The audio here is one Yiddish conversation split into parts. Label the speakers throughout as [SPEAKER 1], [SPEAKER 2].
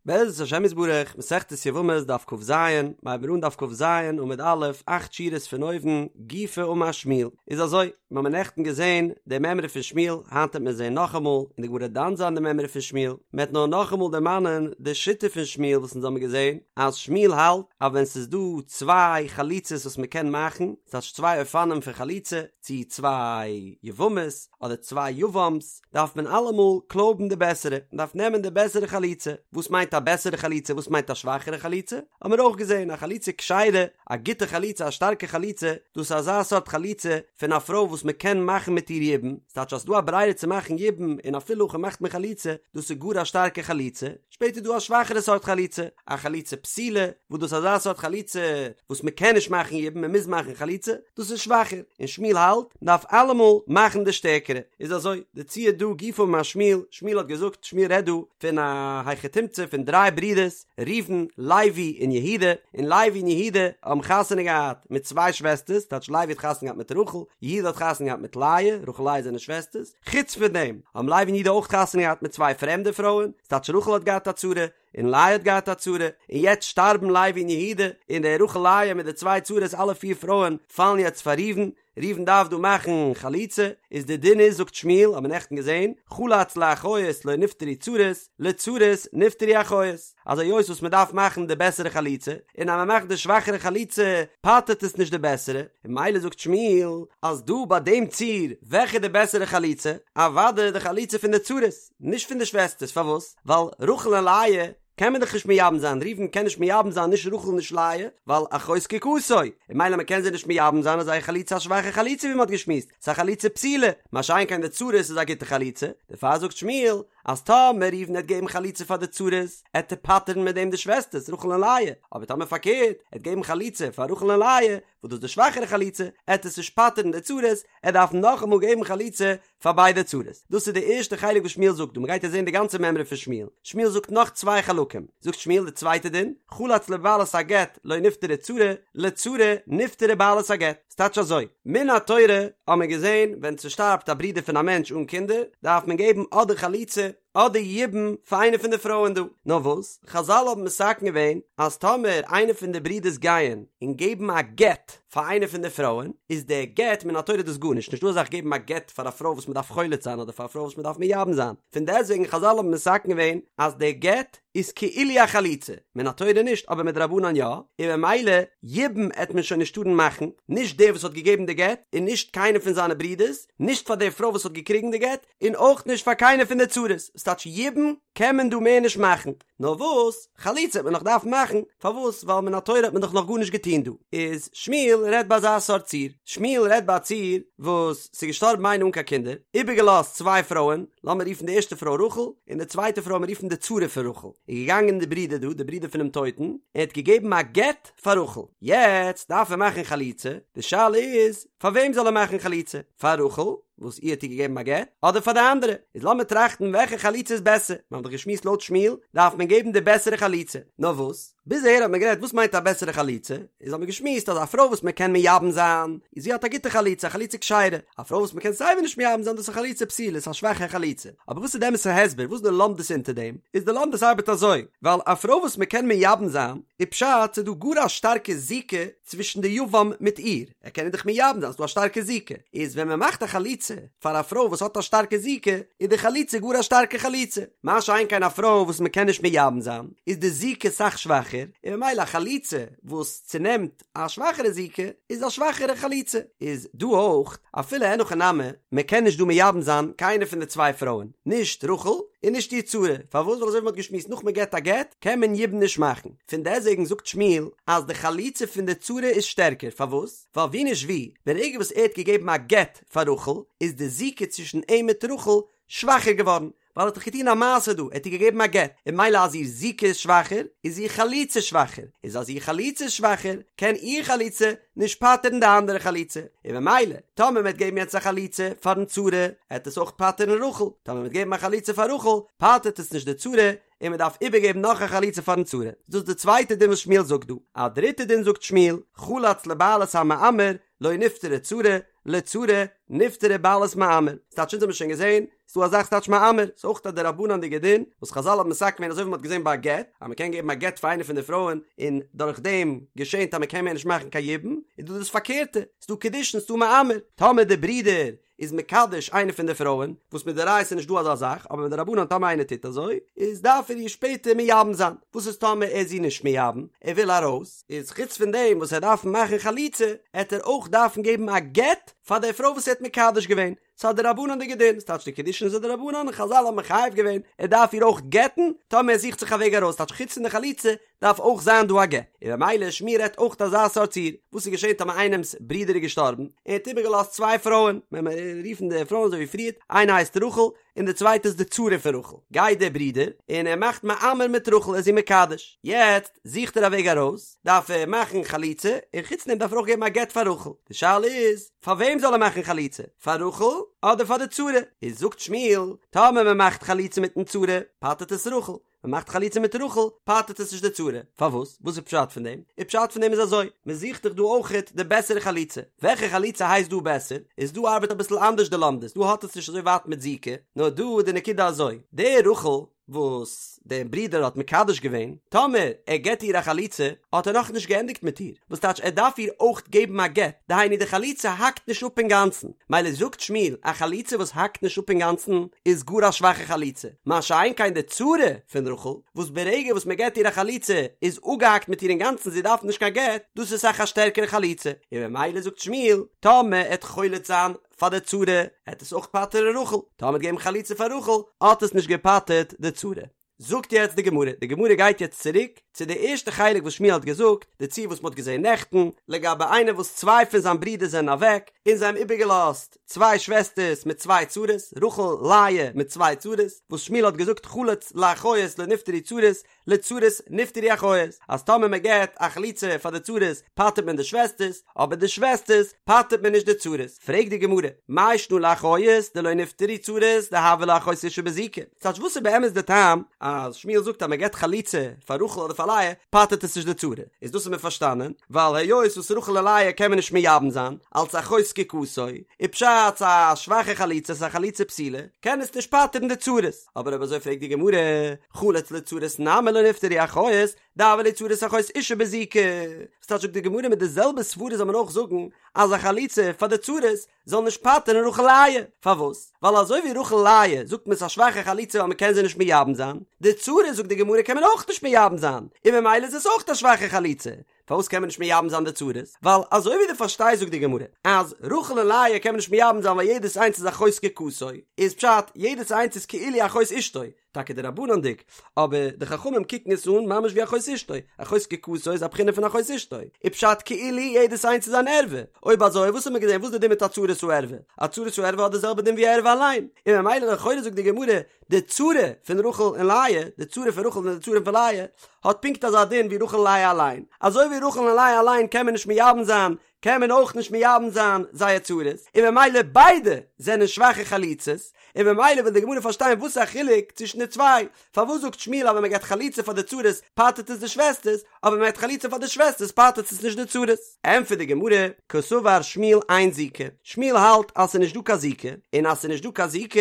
[SPEAKER 1] בעזרת השם יתברך, מסכת יבמות דף כז, מ'הייבט אן דף כז עמוד א', אכט שורות פון אויבן, גופא אמר שמואל, איז אזוי, מיר האבן נעכטן געזען די מימרא פון שמואל, היינט וועט מען זען נאכאמאל, און די גמרא דן זיין די מימרא פון שמואל, מען וועט נאר נאכאמאל דערמאנען די שיטה פון שמואל וואס אונז האבן געזען, אז שמואל האלט אז ווען ס'איז דא צוויי חליצות וואס מען קען מאכן, ס'טייטש צוויי אופנים פון חליצה, צי צוויי יבמות, אדער צוויי יבם'ס, דארף מען אלעמאל קלויבן די בעסערע, מען דארף נעמען די בעסערע חליצה, וואס מיינט א בעסערע חליצה וואס מיינט א שוואכערע חליצה, האבן מיר אויך געזען, א חליצה כשרה, א גוטע חליצה א שטארקע חליצה, דאס איז אזא סארט חליצה פון א פרוי וואס מען קען מאכן מיט איר יבום, ס'טייטש אז ס'דא א ברירה צו מאכן יבום און אפילו הכי מאכט מען חליצה, דאס איז גאר א שטארקע חליצה, שפעטער איז דא א שוואכערע סארט חליצה, א חליצה פסולה, וואס דאס איז אזא סארט חליצה וואס מען קען נישט מאכן יבום מען מוז מאכן חליצה, דאס איז שוואכער, און שמואל האלט מען דארף אלעמאל מאכן די שטערקערע, איז אזוי, די ציור דא גופא אמר שמואל, שמואל האט געזאגט, שמואל רעדט דא פון א היכי תמצא פון דריי ברידערס, ראובן, לוי און יהודה, און לוי און יהודה האבן חתונה געהאט מיט צוויי שוועסטערס, טייטש לוי האט חתונה געהאט מיט רחל, יהודה האט חתונה געהאט מיט לאה, רחל לאה זענען שוועסטערס, חוץ פון דעם האבן לוי און יהודה אויך חתונה געהאט מיט צוויי פרעמדע פרויען, ס'טייטש רחל האט געהאט א צרה, און לאה האט געהאט א צרה, און יעצט שטארבן לוי און יהודה, און די רחל לאה מיט די צוויי צרות אלע פיר פרויען פאלן יעצט פאר ראובן, ראובן דארף דא מאכן חליצה, איז די דין איז זאגט שמואל, האט מען נעכטן געזען, חלץ לאחיות לא נפטרו צרות, לצרות נפטרו אחיות, אז היות וואס מען דארף מאכן די בעסערע חליצה, און אז מען מאכט די שוואכערע חליצה פטר'ט עס נישט די בעסערע, און ממילא זאגט שמואל אז דא ביי דעם ציור וועלכע איז די בעסערע חליצה? אוודאי די חליצה פון די צרות, נישט פון די שוועסטערס, פארוואס? ווייל רחל און לאה קען מען דאך נישט מייבם זיין, ראובן קען נישט מייבם זיין נישט רחל נישט לאה, ווייל אחות זקוקתו, און ממילא מען קען זיי נישט מייבם זיין איז זייער חליצה א שוואכע חליצה ווי מען האט געשמועסט, ס'איז א חליצה פסולה, מה שאין כן די צרות איז א גוטע חליצה, דערפאר זאגט שמואל אז טאמער ראובן העט געבן חליצה פאר די צרות, עט ער פטר'ן מיט דעם די שוועסטערס רחל און לאה, אבער טאמער פארקערט, עט געבן חליצה פאר רחל און לאה, וואס דאס איז די שוואכערע חליצה, עט עס נישט פטר'ן די צרות, ער דארף נאכאמאל געבן חליצה פאר ביידע צרות. דאס איז די ערשטע חלק וואס שמואל זאגט דא, מ'גייט יעצט זען די גאנצע מימרא פון שמואל. שמואל זאגט נאך צוויי חלקים. זאגט שמואל די צווייטע דין, חלץ לבעלת הגט לא נפטרה צרה, לצרה נפטרה בעלת הגט. ס'טייטש אזוי, מן התורה האט מען געזען ווען ס'שטארבט א ברודער פון א מענטש אן קינדער, דארף מען געבן אדער חליצה אדער יבום פאר איינע פון די פרויען דא. נאר וואס, חזל האבן מתקן געווען אז טאמער איינע פון די ברידערס גייען און געבן א גט פאר איינע פון די פרויען, איז דער גט מן התורה דאס גארנישט, נישטא אזא זאך געבן א גט פאר א פרוי וואס מען דארף חולץ זיין אדער פאר א פרוי וואס מען דארף מייבם זיין. פון דעסטוועגן חזל האבן מתקן געווען אז דער גט איז כאילו א חליצה, מן התורה נישט אבער מדרבנן יא, און ממילא יבום עט מען שוין נישט טארן מאכן, נישט דער וואס האט געגעבן די גט, און נישט קיינער פון זיינע ברידערס, נישט פאר דער פרוי וואס האט געקריגן די גט, און אויך נישט פאר קיינער פון די צרות, ס'טייטש יבום קען מען דא מער נישט מאכן, נאר וואס, חליצה וועט מען נאך דארפן מאכן, פארוואס, ווייל מן התורה האט מען דאך נאך גארנישט געטון דא, איז שמואל רעדט ביי אזא סארט ציור, שמואל רעדט ביי א ציור וואס ס'איז געשטארבן איינער אן קיין קינדער, איבערגעלאזט צוויי פרויען, לאמיר רופן די ערשטע פרוי רחל, און די צווייטע פרוי לאמיר רופן די צרה פון רחל, איז געגאנגען די ברודער דא, די ברודער פונעם טויטן, און האט געגעבן א גט פאר רחל, יעצט דארף ער מאכן חליצה, די שאלה איז, פאר וועם זאל ער מאכן חליצה, פאר רחל, וואס איר האט ער געגעבן א גט, אדער פאר די אנדערע, איז לאמיר טראכטן וועלכע חליצה איז בעסער, מיר האבן דאך געשמועסט לויט שמואל דארף מען געבן די בעסערע חליצה, נאר וואס, ביז אהער האט מען גערעדט וואס מיינט א בעסערע חליצה, איז האט מען געשמועסט אז א פרוי וואס מען קען מייבם זיין, איז זי האט א גוטע חליצה, א חליצה כשרה, א פרוי וואס מען קען סייווי נישט מייבם זיין דאס איז א חליצה פסולה, ס'איז א שוואכע חליצה, אבער וואס איז די אמת'ע הסבר, וואס איז די לומדות אונטער דעם, איז די לומדות ארבעט אזוי, ווייל א פרוי וואס מען קען מייבם זיין, איז פשט ס'איז דא גאר א שטארקע זיקה צווישן די יבם מיט איר, ער קען איר דאך מייבם זיין, ס'איז דא א שטארקע זיקה, איז ווען מען מאכט א חליצה פאר א פרוי וואס האט א שטארקע זיקה, איז די חליצה גאר א שטארקע חליצה, מה שאין כן א פרוי וואס מען קען נישט מייבם זיין, איז די זיקה סאך שוואכער, און ממילא א חליצה וואס צונעמט א שוואכערע זיקה, איז א שוואכערע חליצה. איז דא אויך, אפילו אין הכי נמי, מען קען נישט דא מייבם זיין קיינע פון די צוויי פרויען, נישט רחל און נישט איר צרה, פארוואס? ווייל אזוי ווי מען האט געשמועסט נאך מען געט א גט, קען מען יבום נישט מאכן. פון דעסוועגן זאגט שמואל אז די חליצה פון די צרה איז שטערקער, פארוואס? ווייל ווי נישט ווי, ברגע וואס ער האט געגעבן א גט פאר רחל, איז די זיקה צווישן אים מיט רחל שוואכער געווארן, ווייל ער האט דאך געטון א מעשה דא, ער האט איר געגעבן א גט, און ממילא אז איר זיקה איז שוואכער, איז איר חליצה שוואכער, איז אז איר חליצה איז שוואכער, קען איר חליצה נישט פטר'ן די אנדערע חליצה, און ממילא, טאמער מען וועט געבן יעצט א חליצה פאר'ן צרה, עט עס אויך פטר'ן רחל, טאמער מען וועט געבן א חליצה פאר רחל, פטר'ט עס נישט די צרה, און מען דארף איבערגעבן נאך א חליצה פארן צרה, דאס איז די צווייטע דין וואס שמואל זאגט דא, א דריטע דין זאגט שמואל, חלץ לבעלת המאמר, לא נפטרה צרה, לצרה נפטרה בעלת מאמר, ס'טייטש אונז האבן שוין געזען, ס'דא א זאך ס'טייטש מאמר, ס'איז אויך א דרבנן'דיגע דין, וואס חזל האבן מתקן געווען אזוי ווי מ'האט געזען ביי א גט, אז מ'קען געבן א גט פאר איינע פון די פרויען און דורך דעם געשענט אז מ'קען מער נישט מאכן קיין יבום, איז דא דאס פארקערטע, ס'דא קידושין ס'דא מאמר, טאמער די ברודער איז מקדש איינע פון די פרויען, וואס מדאורייתא איז נישט דא אזא זאך, אבער מדרבנן טאמער איינער טוט אזוי, איז דארף ער איר שפעטער מייבם זיין, וואס איז טאמער ער איז איר נישט מייבם, ער וויל ארויס, איז חוץ פון דעם וואס ער דארף מאכן חליצה, עט ער אויך דארפן געבן א גט פאר די פרוי וואס ער האט מקדש געווען, ס'איז א דרבנן'דיגע דין, ס'טייטש די קידושין איז א דרבנן און חזל האבן מחייב געווען, ער דארף איר אויך גט'ן, טאמער ער זוכט זיך א וועג ארויס, טייטש חוץ פון די חליצה דארף אויך זיין דא א גט, און במילא שמואל רעדט אויך אזא סארט ציור, וואס איז געשען טאמער איינעמ'ס ברודער איז געשטארבן, און ער האט איבערגעלאזט צוויי פרויען, ווען מיר רופן די פרויען אזוי ווי פריערט, איינע הייסט רחל, און די צווייטע איז די צרה פון רחל, גייט דער ברודער און ער מאכט מאמר מיט רחל, ער איז איר מקדש, יעצט זוכט ער א וועג ארויס, דארף ער מאכן חליצה, און חוץ דעם דארף ער אויך געבן א גט פאר רחל, די שאלה איז, פאר וועם זאל ער מאכן חליצה, פאר רחל אדער פאר די צרה? איז זאגט שמואל, טאמער מען מאכט חליצה מיטן צרה, פטר'ט עס רחל, מען מאכט חליצה מיט רחל, פטר'ט עס נישט די צרה. פארוואס? וואס איז פשט פון דעם? די פשט פון דעם איז אזוי, מען זוכט דאך דא אויכעט די בעסערע חליצה. וועלכע חליצה הייסט דא בעסער? איז דא ארבעט אביסל אנדערש די לומדות, דא האט עס נישט אזוי ווייט מיט זיקה, נאר דא איז די נקודה אזוי, די רחל וואס דער ברודער האט מקדש געווען, טאמער ער געט איר א חליצה, האט ער נאכנישט געענדיגט מיט איר, וואס טייטש ער דארף איר אויך געבן א גט, דהיינו די חליצה האקט נישט אפ אינגאנצן, מילא זאגט שמואל א חליצה וואס האקט נישט אפ אינגאנצן איז גאר א שוואכע חליצה, מה שאין כן די צרה פון רחל וואס ברגע וואס מען געט איר א חליצה איז אפגעהאקט מיט איר אינגאנצן זי דארף נישט קיין גט, דאס איז אסאך א שטערקערע חליצה, און ממילא זאגט שמואל טאמער ער עט חולץ זיין פאר די צרה עט עס אויך פטר'ן רחל, טאמער עט געבן חליצה פאר רחל האט עס נישט געפטר'ט די צרה. זאגט יעצט די גמרא, די גמרא גייט יעצט צוריק צו די ערשטע חלק וואס שמואל האט געזאגט, די ציור וואס מ'האט געזען נעכטן, לגבי איינער וואס צוויי פון זיין ברידער זענען אוועק, און זיי האבן איבערגעלאזט צוויי שוועסטערס מיט צוויי צרות, רחל, לאה מיט צוויי צרות, וואס שמואל האט געזאגט חלץ לאחיות לא נפטרו צרות, לצרות נפטרו אחיות, אז טאמער מען געבט א חליצה פאר די צרות פטר'ט מען די שוועסטערס, אבער די שוועסטערס פטר'ט מען נישט די צרות. פרעגט די גמרא, מאי שנא לאחיות דלא נפטרו צרות דהוה לה אחות אשה בזיקה? ס'טייטש וואס איז באמת די טעם אז שמואל זאגט אז מען געבט חליצה פאר רחל אדער פאר לאה פטר'ט עס נישט די צרה? איז דאס האט מען פארשטאנען ווייל היות וואס רחל און לאה קען מען נישט מייבם זיין אלץ אחות זקוקתו, איז פשט ס'איז א שוואכע חליצה ס'איז א חליצה פסולה קען עס נישט פטר'ן די צרות. אבער אויב אזוי פרעגט די גמרא, חלץ לצרות נמי לא נפטרו אחיות דהוה להו צרות אחות אשה בזיקה, וואס טייטש זאגט די גמרא מיט די זעלבע סברה זאל מען אויך זאגן אז א חליצה פאר די צרות זאל נישט פטר'ן רחל לאה, פארוואס? ווייל אזוי ווי רחל לאה זאגט מען ס'איז א שוואכע חליצה ווייל מ'קען זיי נישט מייבם זיין, די צרות זאגט די גמרא קען מען אויך נישט מייבם זיין, און ממילא איז עס אויך א שוואכע חליצה, פארוואס קען מען נישט מייבם זיין די צרות? ווייל אזוי ווי דו פארשטייסט זאגט די גמרא אז רחל און לאה קען מען נישט מייבם זיין ווייל יעדעס איינס איז אחות זקוקתו, איז פשט יעדעס איינס איז כאילו אחות אשתו, טאקע דרבנן'דיג, אבער די חכמים קוקן עס אן ממש ווי אחות אשתו, אחות זקוקתו איז א בחינה פון אחות אשתו, איז פשט כאילו יעדעס איינס איז אן ערווה, אויב אזוי וואס האט מען געזען וואס איז די דין מיט א צרת הערווה? א צרת הערווה האט די זעלבע דין ווי ערווה אליין, און ממילא לכאורה זאגט די גמרא די צרה פון רחל און לאה, די צרה פון רחל און די צרה פון לאה, האט פונקט אזא דין ווי רחל און לאה אליין, אזוי ווי רחל און לאה אליין קען מען נישט מייבם זיין, קען מען אויך נישט מייבם זיין זייער צרות, און ממילא ביידע זענען שוואכע חליצות, און ממילא וויל די גמרא פארשטיין וואס איז א חילוק צווישן די צוויי, פארוואס זאגט שמואל אז ווען מען געבט חליצה פאר די צרות פטר'ט עס די שוועסטערס, אבער ווען מען געבט חליצה פאר די שוועסטערס פטר'ט עס נישט די צרות? ענטפערט די גמרא, קסבר שמואל אין זיקה, שמואל האלט אז ס'איז נישט דא קיין זיקה, און אז ס'איז נישט דא קיין זיקה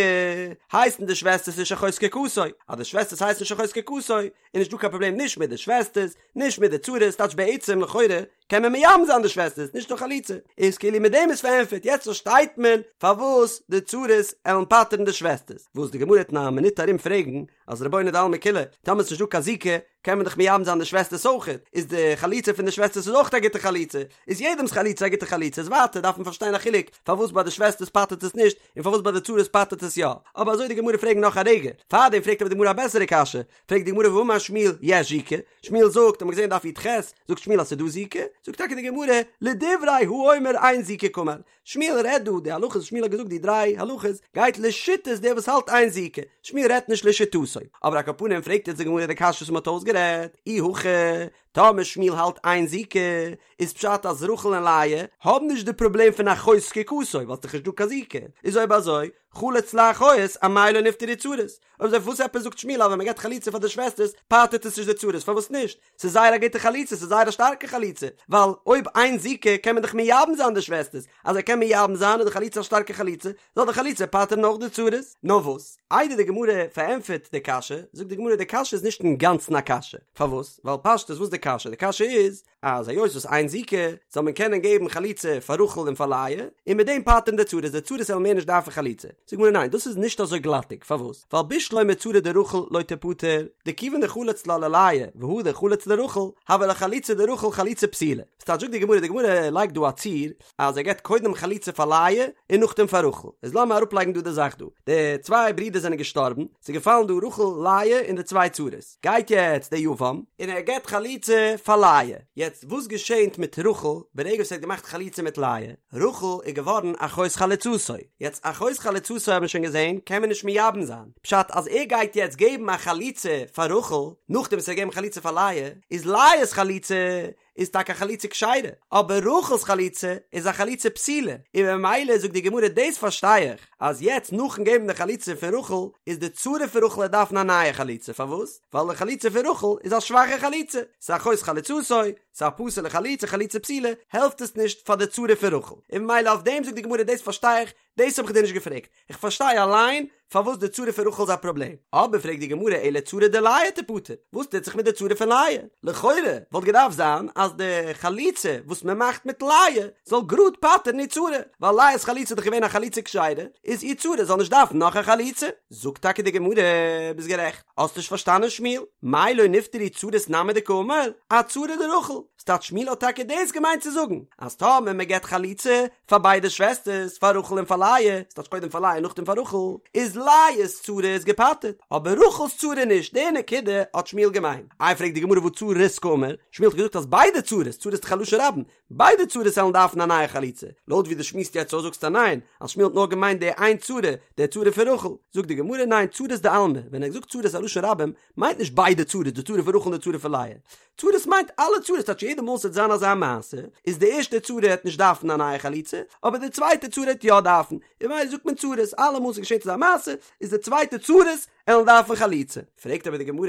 [SPEAKER 1] הייסן די שוועסטערס נישט אחות זקוקתו, אז די שוועסטערס הייסן נישט אחות זקוקתו איז נישט דא קיין פראבלעם נישט מיט די שוועסטערס, נישט מיט די צרות, טייטש בעצם לכאורה קען מען מייבם זיין די שוועסטערס נישט נאר חליצה, איז כאילו מיט דעם איז פארענטפערט, יעצט פארשטייט מען פארוואס די צרות עלן פטר'ן די שוועסטערס, וואס די גמרא וועט אין א מינוט ארום פרעגן אז רבונו דעלמא כולא, טאמער ס'נישט דא קיין זיקה קען מען דאך מייבם זיין די שוועסטערס אויכעט, איז די חליצה פון די שוועסטערס איז אויך א גוטע חליצה, איז יעדעמ'ס חליצה א גוטע חליצה, איז ווייטער דארף מען פארשטיין א חילוק פארוואס ביי די שוועסטערס פטר'ט עס נישט און פארוואס ביי די צרות פטר'ט עס יא, אבער אזוי די גמרא פרעגן נאך א רגע, פארדעם פרעגט אבער די גמרא א בעסערע קשיא, פרעגט די גמרא והאמר שמואל יש זיקה, שמואל זאגט, האט מען געזען דף י"ח, זאגט שמואל אז ס'איז דא זיקה, זאגט טאקע די גמרא, לדברי האומר אין זיקה קאמר, שמואל רעדט דא, די הלכות וואס שמואל האט געזאגט די דריי הלכות, גייט לשיטת דער וואס האלט אין זיקה, שמואל רעדט נישט לשיטתו, אבער על כל פנים פרעגט יעצט די גמרא די קשיא וואס מ'האט אויסגערעדט, אי הכי. טאמער שמואל האלט אין זיקה, איז פשט אז רחל און לאה האבן נישט די פראבלעם פון אחות זקוקתו, ווייל ס'דאך נישט דא קיין זיקה, איז אויב אזוי, חלץ לאחיות, אמאי לא נפטרו צרות? אויב אזוי פארוואס עפעס זאגט שמואל אז ווען מ'געבט חליצה פאר די שוועסטערס פטר'ט עס נישט די צרות, פארוואס נישט? ס'איז זייער א גוטע חליצה, ס'איז זייער א שטארקע חליצה, ווייל אויב אין זיקה קען מען דאך מייבם זיין די שוועסטערס, אז ער קען מייבם זיין איז די חליצה א שטארקע חליצה, זאל די חליצה פטר'ן אויך די צרות. נאר וואס, איידער די גמרא פארענטפערט די קשיא, זאגט די גמרא די קשיא איז נישט אינגאנצן א קשיא, פארוואס? ווייל פשטות וואס איז די קשיא? די קשיא איז, אז היות וואס אין זיקה, זאל מען קענען געבן חליצה פאר רחל און פאר לאה, און מיט דעם פטר'ן די צרות, די צרות וועלן מער נישט דארפן חליצה. זאגט די גמרא ניין, דאס איז נישט אזוי גלאטיג, פארוואס? ווייל בשלמא צרה דרחל לא תיפטר, דכיון דחלץ לה ללאה, והדר חלץ לרחל, הוה לה חליצה דרחל חליצה פסולה. ס'טייטש זאגט די גמרא, די גמרא לייגט דא א ציור, אז ער געבט קודם חליצה פאר לאה און נאכדעם פאר רחל. איז לאמיר אראפלייגן דא די זאך דא. די צוויי ברידער זענען געשטארבן, ס'איז געפאלן דא רחל, לאה און די צוויי צרות. גייט יעצט דער יבם און ער געבט חליצה פאר לאה. יעצט וואס געשענט מיט רחל ברגע וואס ער האט געמאכט חליצה מיט לאה? רחל איז געווארן אחות חלוצתו. יעצט אחות חלוצתו האט מען שוין געזען קען מען נישט מייבם זיין. פשט אז ער גייט יעצט געבן א חליצה פאר רחל נאכדעם וואס ער האט געגעבן חליצה פאר לאה, איז לאה'ס חליצה איז טאקע א חליצה כשרה, אבער רחל'ס חליצה איז א חליצה פסולה, און ממילא זאגט די גמרא דאס פארשטיי איך, אז יעצט נאכן געבן די חליצה פון רחל, איז די צרה פון רחל וועט דארפן א נייע חליצה, פארוואס? ווייל די חליצה פון רחל איז א שוואכע חליצה, ס'איז אחות חלוצתו, ס'איז א פסול'ע חליצה, חליצה פסולה, העלפט עס נישט פאר די צרה פון רחל, און ממילא אויף דעם זאגט די גמרא דאס פארשטיי איך, דאס האב איך דיר נישט געפרעגט, איך פארשטיי אליין פארוואס די צרה פון רחל איז א פראבלעם, אבער פרעגט די גמרא אלא צרה דלאה תיפטר, וואס טוט זיך מיט די צרה פון לאה? לכאורה וואלט געדארפט זיין אז די חליצה וואס מען מאכט מיט לאה זאל גראד פטר'ן איר צרה, ווייל לאה'ס חליצה איז דאך געווען א חליצה כשרה, איז איר צרה זאל נישט דארפן נאך א חליצה. זאגט טאקע די גמרא, ביסט גערעכט, האסט נישט פארשטאנען שמואל, מאי לא נפטרו צרות נמי דקאמר, אצרה דרחל, ס'טייטש שמואל האט טאקע דאס געמיינט צו זאגן, אז טאמער מען געבט חליצה פאר ביידע שוועסטערס, פאר רחל און פאר לאה, ס'טייטש קודם פאר לאה און נאכדעם פאר רחל, איז לאה'ס צרה איז געפטר'ט, אבער רחל'ס צרה נישט, די נקודה האט שמואל געמיינט. איי פרעגט די גמרא והא צרות קאמר, שמואל האט געזאגט אז ביידע צרות, צרות איז דאך א לשון רבים, ביידע צרות וועלן דארפן א נייע חליצה, לויט ווי דו שמועסט יעצט אויס זאגסטו ניין, אז שמואל האט נאר געמיינט די איין צרה, די צרה פון רחל, זאגט די גמרא ניין צרות דעלמא, ווען ער האט געזאגט צרות א לשון רבים, מיינט נישט ביידע צרות, די צרה פון רחל און די צרה פון לאה. צרות מיינט אלע צרות, טייטש יעדע מאל ס'וועט זיין אזא מעשה, איז די ערשטע צרה העט נישט דארפן א נייע חליצה, אבער די צווייטע צרה העט יא דארפן, און ממילא זאגט מען צרות, אלע מאל ס'געשעט אזא מעשה, איז די צווייטע צרות עלן דארפן חליצה. פרעגט אבער די גמרא,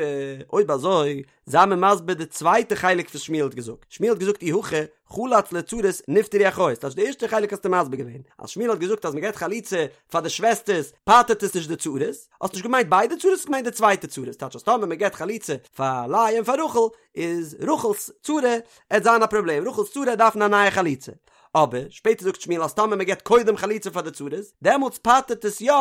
[SPEAKER 1] אויב אזוי, זיי מיר מסביר די צווייטע חלק וואס שמואל האט געזאגט, שמואל האט געזאגט אי הכי, חלץ לצרות נפטרו אחיות, טייטש די ערשטע חלק האסטו מסביר געווען, אז שמואל האט געזאגט אז מ'געט חליצה פאר די שוועסטערס פטר'ט עס נישט די צרות, האסט נישט געמיינט ביידע צרות האסט געמיינט די צווייטע צרות, טייטש אז טאמער מ'געט חליצה פאר לאה און פאר רחל איז רחל'ס צרה עט זיין א פראבלעם, רחל'ס צרה עט דארפן א נייע חליצה. אבער שפעטער זאגט שמואל אז טאמער מ'געט קודם חליצה פאר די צרות דעמאלטס פטר'ט עס יא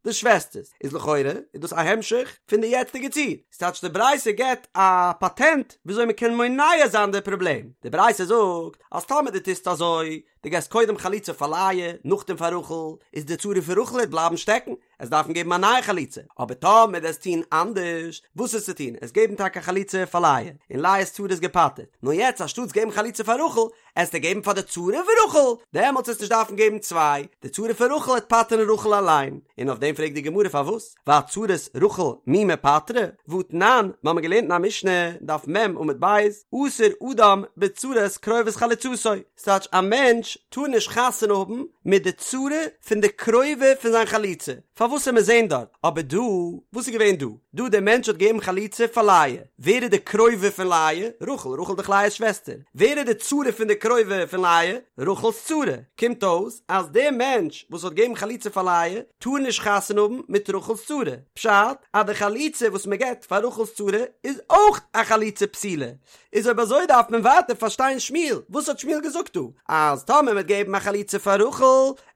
[SPEAKER 1] די שוועסטערס, איז לכאורה איז דאס א המשך פון די יעצטיגע ציור, ס'טייטש די ברייתא געבט א פאטענט וויאזוי מ'קען מונע זיין די פראבלעם, די ברייתא זאגט אז טאמער דו טוסט אזוי, דו געסט קודם חליצה פאר לאה, נאכדעם פאר רחל, איז די צרה פון רחל העט בלייבן שטעקן, עסט דארפן געבן א נייע חליצה, אבער טאמער דו עסט טון אנדערש, וואס עסטו טון? עסט געבן טאקע חליצה פאר לאה, און לאה'ס צרה איז געפטר'ט, נאר יעצט אנשטאטס געבן חליצה פאר רחל, עסטו געבן פאר די צרה פון רחל, דעמאלטס עסט נישט דארפן געבן צוויי, די צרה פון רחל העט פטר'ן רחל אליין, און אויף דעם פרעגט די גמרא פארוואס, ואצרות רחל מי מיפטרי, והתנן, מיר האבן געלערנט אין א משנה, דף מ עמוד ב', אסור אדם בצרת קרובת חלוצתו, ס'טייטש א מענטש טאר נישט חתונה האבן מיט די צרה פון די קרובה פון זיין חלוצה, פארוואס עמיר זעהן דארט, אבער דא, וואס איז געווען דא? דא דער מענטש האט געגעבן חליצה פאר לאה, ווער איז די קרובה פון לאה? רחל, רחל איז דאך לאה'ס שוועסטער, ווער איז די צרה פון די קרובה פון לאה? רחל'ס צרה, קומט אויס אז דער מענטש וואס האט געגעבן חליצה פאר לאה טאר נישט חתונה האבן מיט רחל'ס צרה, פשט אז די חליצה וואס מען געבט פאר רחל'ס צרה איז אויך א חליצה פסולה, איז אויב אזוי דארף מען ווייטער פארשטיין שמואל, וואס האט שמואל געזאגט דא? אז טאמער מען וועט געבן א חליצה פאר רחל,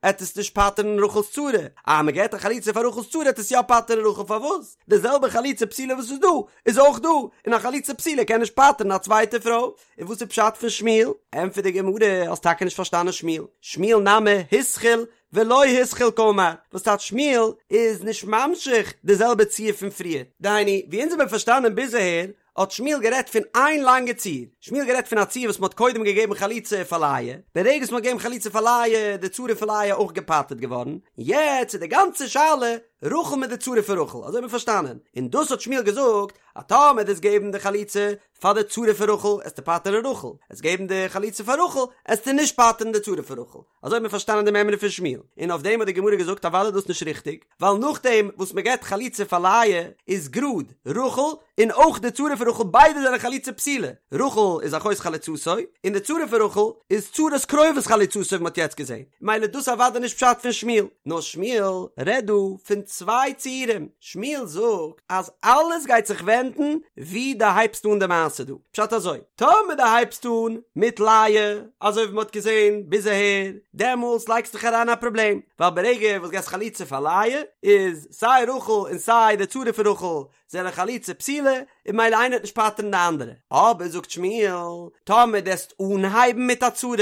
[SPEAKER 1] עט עס נישט פטר'ן רחל'ס צרה, אז מען געבט א חליצה פאר רחל'ס צרה עט עס יא פטר'ן רחל, פארוואס? די זעלבע חליצה פסולה וואס איז דא, איז אויך דא, און א חליצה פסולה קען נישט פטר'ן א צווייטע פרוי, און וואס איז פשט פון שמואל? ענטפערט די גמרא, האסט טאקע נישט פארשטאנען שמואל, שמואל נמי התחיל ולא התחיל קאמר, וואס טייטש שמואל איז נישט ממשיך די זעלבע ציור פון פריער, דהיינו ווי אונז האבן פארשטאנען ביז אהער, האט שמואל גערעדט פון איין לאנגע ציור, שמואל גערעדט פון א ציור וואס מ'האט קודם געגעבן חליצה פאר לאה, ברגע וואס מ'האט געגעבן חליצה פאר לאה איז די צרה פון לאה אויך געפטר'ט געווארן, יעצט איז די גאנצע שאלה. רחל מיט די צרה פון רחל, אזוי האט מען פארשטאנען, און דאס האט שמואל געזאגט, אז טאמער דו'סט געבן די חליצה פאר די צרה פון רחל, עסטו פטר'ן רחל, עסט געבן די חליצה פאר רחל, עסטו נישט פטר'ן די צרה פון רחל. אזוי האט מען פארשטאנען די מימרא פון שמואל, און אויף דעם האט די גמרא געזאגט אוודאי דאס נישט ריכטיג, ווייל נאכדעם וואס מען געבט חליצה פאר לאה איז גראד רחל און אויך די צרה פון רחל ביידע זענען חליצה פסולה, רחל איז אחות חלוצתו און די צרה פון רחל איז צרת קרובת חלוצתו ווי מען האט יעצט געזען, מילא דאס אוודאי נישט פשט פון שמואל, נאר שמואל רעדט דא פון צוויי ציורים, שמואל זאגט אז אלעס גייט זיך ווענדן ווי דו הייבסט אן די מעשה דא, פשט אזוי, טאמער דו הייבסט אן מיט לאה, אזוי ווי מען האט געזען ביז אהער, דעמאלטס לייגסט דיך אריין א פראבלעם, ווייל ברגע וואס געסט חליצה פאר לאה, איז סיי רחל און סיי די צרה פון רחל זענען חליצה פסולה, און מילא איינער וועט נישט פטר'ן די אנדערע. אבער זאגט שמואל, טאמער דו עסט אנהייבן מיט א צרה,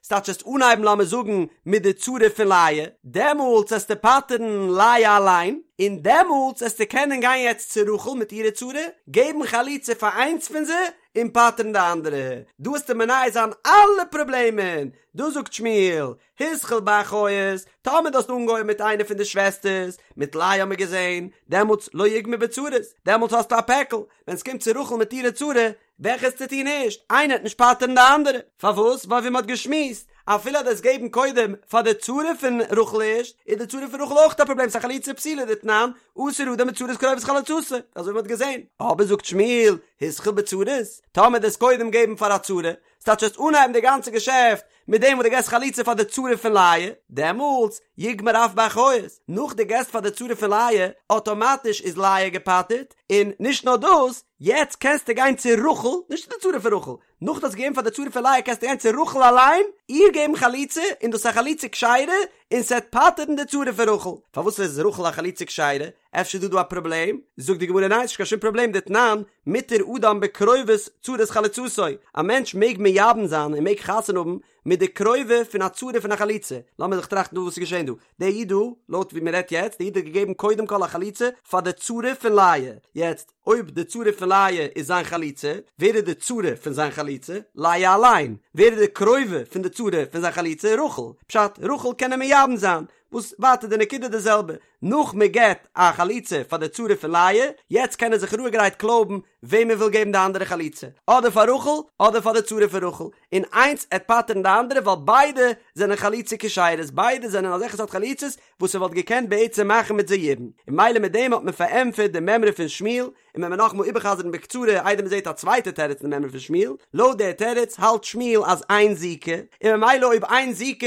[SPEAKER 1] ס'טייטש עסט אנהייבן לאמיר זאגן מיט די צרה פון לאה, דעמאלטס עסטו פטר'ן לאה אליין, און דעמאלטס עסטו קענען גיין יעצט צו רחל מיט אירע צרה, געבן חליצה פאר איינס פון זיי, און פטר'ן די אנדערע. דא עסטו מונע זיין אלע פראבלעמען. דא זאגט שמואל, התחיל באחיות, טאמער דו האסט אנגעהויבן מיט איינע פון די שוועסטערס, מיט לאה האמיר געזען, דעמאלטס לא יגמור בצרות, דעמאלטס האסטו א פעקל, ווען ס'קומט צו רחל מיט אירע צרה, וועלכע עסטו טון ערשט, איינער וועט נישט פטר'ן די אנדערע. פארוואס? ווייל ווי מ'האט געשמועסט, אפילו אז דו עסט געבן קודם פאר די צרה פון רחל ערשט, איז די צרה פון רחל אויך א פראבלעם, ס'איז א חליצה פסולה דתנן, אסור אדם בצרת קרובת חלוצתו, אזוי ווי מ'האט געזען. אבער זאגט שמואל, התחיל בצרות, טאמער דו עסט קודם געבן פאר א צרה, ס'טייטש עסט אנהייבן די גאנצע געשעפט מיט דעם וואס דו געסט חליצה פאר די צרה פון לאה, דעמאלטס יגמור אף באחיות, נאך דו געסט פאר די צרה פון לאה, אטאמאטיש איז לאה געפטר'ט, און נישט נאר דאס, יעצט קענסטו גיין צו רחל, נישט צו די צרה פון רחל, נאך דו האסט געגעבן פאר די צרה פון לאה קענסטו גיין צו רחל אליין, איר געבן חליצה, און דאס איז א חליצה כשרה, און ס'עט פטר'ן די צרה פון רחל. פארוואס איז רחל א חליצה כשרה? אפשר איז דא דא א פראבלעם? זאגט די גמרא ניין ס'נישט קיין שום פראבלעם דתנן, מותר אדם בקרובת צרת חלוצתו, א מענטש מעג מייבם זיין און מעג חתונה האבן מיט די קרובה פון א צרה פון א חלוצה, לאמיר זיך טראכטן דא וואס איז געשען דא, דער איד דא, לויט ווי מ'רעדט יעצט, דער איד האט געגעבן קודם כל א חליצה פאר די צרה פון לאה, יעצט אויב די צרה פון לאה איז זיין חלוצה, ווער איז די צרה פון זיין חלוצה? לאה אליין, ווער איז די קרובה פון די צרה פון זיין חלוצה? רחל, פשט, רחל קען ער מייבם זיין, וואס ווייטער די נקודה די זעלבע, נאך מען געבט א חליצה פאר די צרה פון לאה, יעצט קען ער זיך רואיגערהייט קלויבן וועם ער וויל געבן די אנדערע חליצה, אדער פאר רחל אדער פאר די צרה פון רחל, און איינס עט פטר'ן די אנדערע ווייל ביידע זענען חליצה כשרות, ביידע זענען אזעלכע סארט חליצות וואס ער וואלט געקענט בעצם מאכן מיט זיי יבום, און מילא מיט דעם האט מען פארענטפערט די מימרא פון שמואל, און ווען מיר נאכאמאל איבערחזר'ן בקצרה איידער מען זעט א צווייטע תירוץ אין די מימרא פון שמואל, לויט דער תירוץ האלט שמואל אז אין זיקה, און ממילא אויב אין זיקה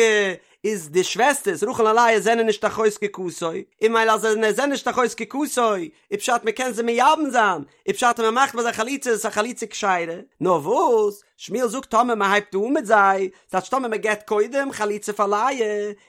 [SPEAKER 1] איז די שוועסטערס רחל און לאה זענען נישט אחות זקוקתו, און מילא אז זיי זענען נישט אחות זקוקתו, איז פשט מען קען זיי מייבם זיין, איז פשט אז מען מאכט ביי זיי חליצה איז עס א חליצה כשרה, נאר וואס, שמואל זאגט טאמער מען הייבט אן מיט זיי, ס'טייטש טאמער מען געבט קודם חליצה פאר לאה,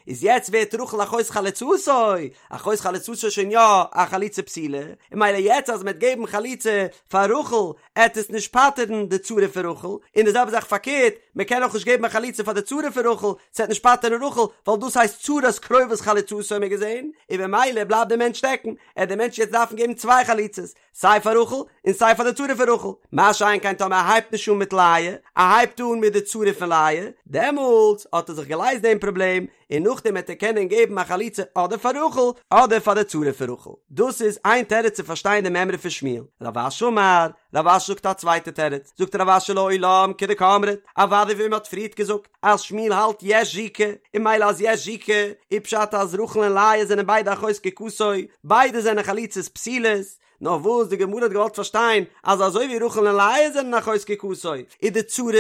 [SPEAKER 1] איז יעצט ווערט רחל אחות חלוצתו, אחות חלוצתו איז שוין יא א חליצה פסולה, און מילא יעצט אז מען וועט געבן חליצה פאר רחל, עט עס נישט פטר'ן די צרה פון רחל, און די זעלבע זאך פארקערט, מען קען אויך נישט געבן א חליצה פאר די צרה פון רחל, ס'עט נישט פטר'ן רחל, ווייל דאס הייסט צרת קרובת חלוצתו האבן מיר געזען, און במילא בלייבט דער מענטש שטעקן, עט דער מענטש יעצט דארפן געבן צוויי חליצות, סיי פאר רחל, און סיי פאר די צרה פון רחל, מה שאין כן טאמער ער הייבט נישט אן מיט לאה, ער הייבט אן מיט די צרה פון לאה, דעמאלטס האט ער זיך געלייזט דעם פראבלעם, און נאכדעם וועט ער קענען געבן א חליצה אדער פאר רחל אדער פאר די צרה פון רחל. דאס איז איין תירוץ צו פארשטיין די מימרא פון שמואל. רב אשי אמר, רב אשי זאגט א צווייטע תירוץ, זאגט רב אשי לעולם כדקאמרת, אוודאי ווי מען האט פריערט געזאגט אז שמואל האלט יש זיקה, און מילא אז יש זיקה איז פשט אז רחל און לאה זענען ביידע אחות זקוקתו, ביידע זענען חליצות פסולות, נאר וואס די גמרא האט געוואלט פארשטיין אז אזוי ווי רחל און לאה זענען אחות זקוקתו, איז די צרות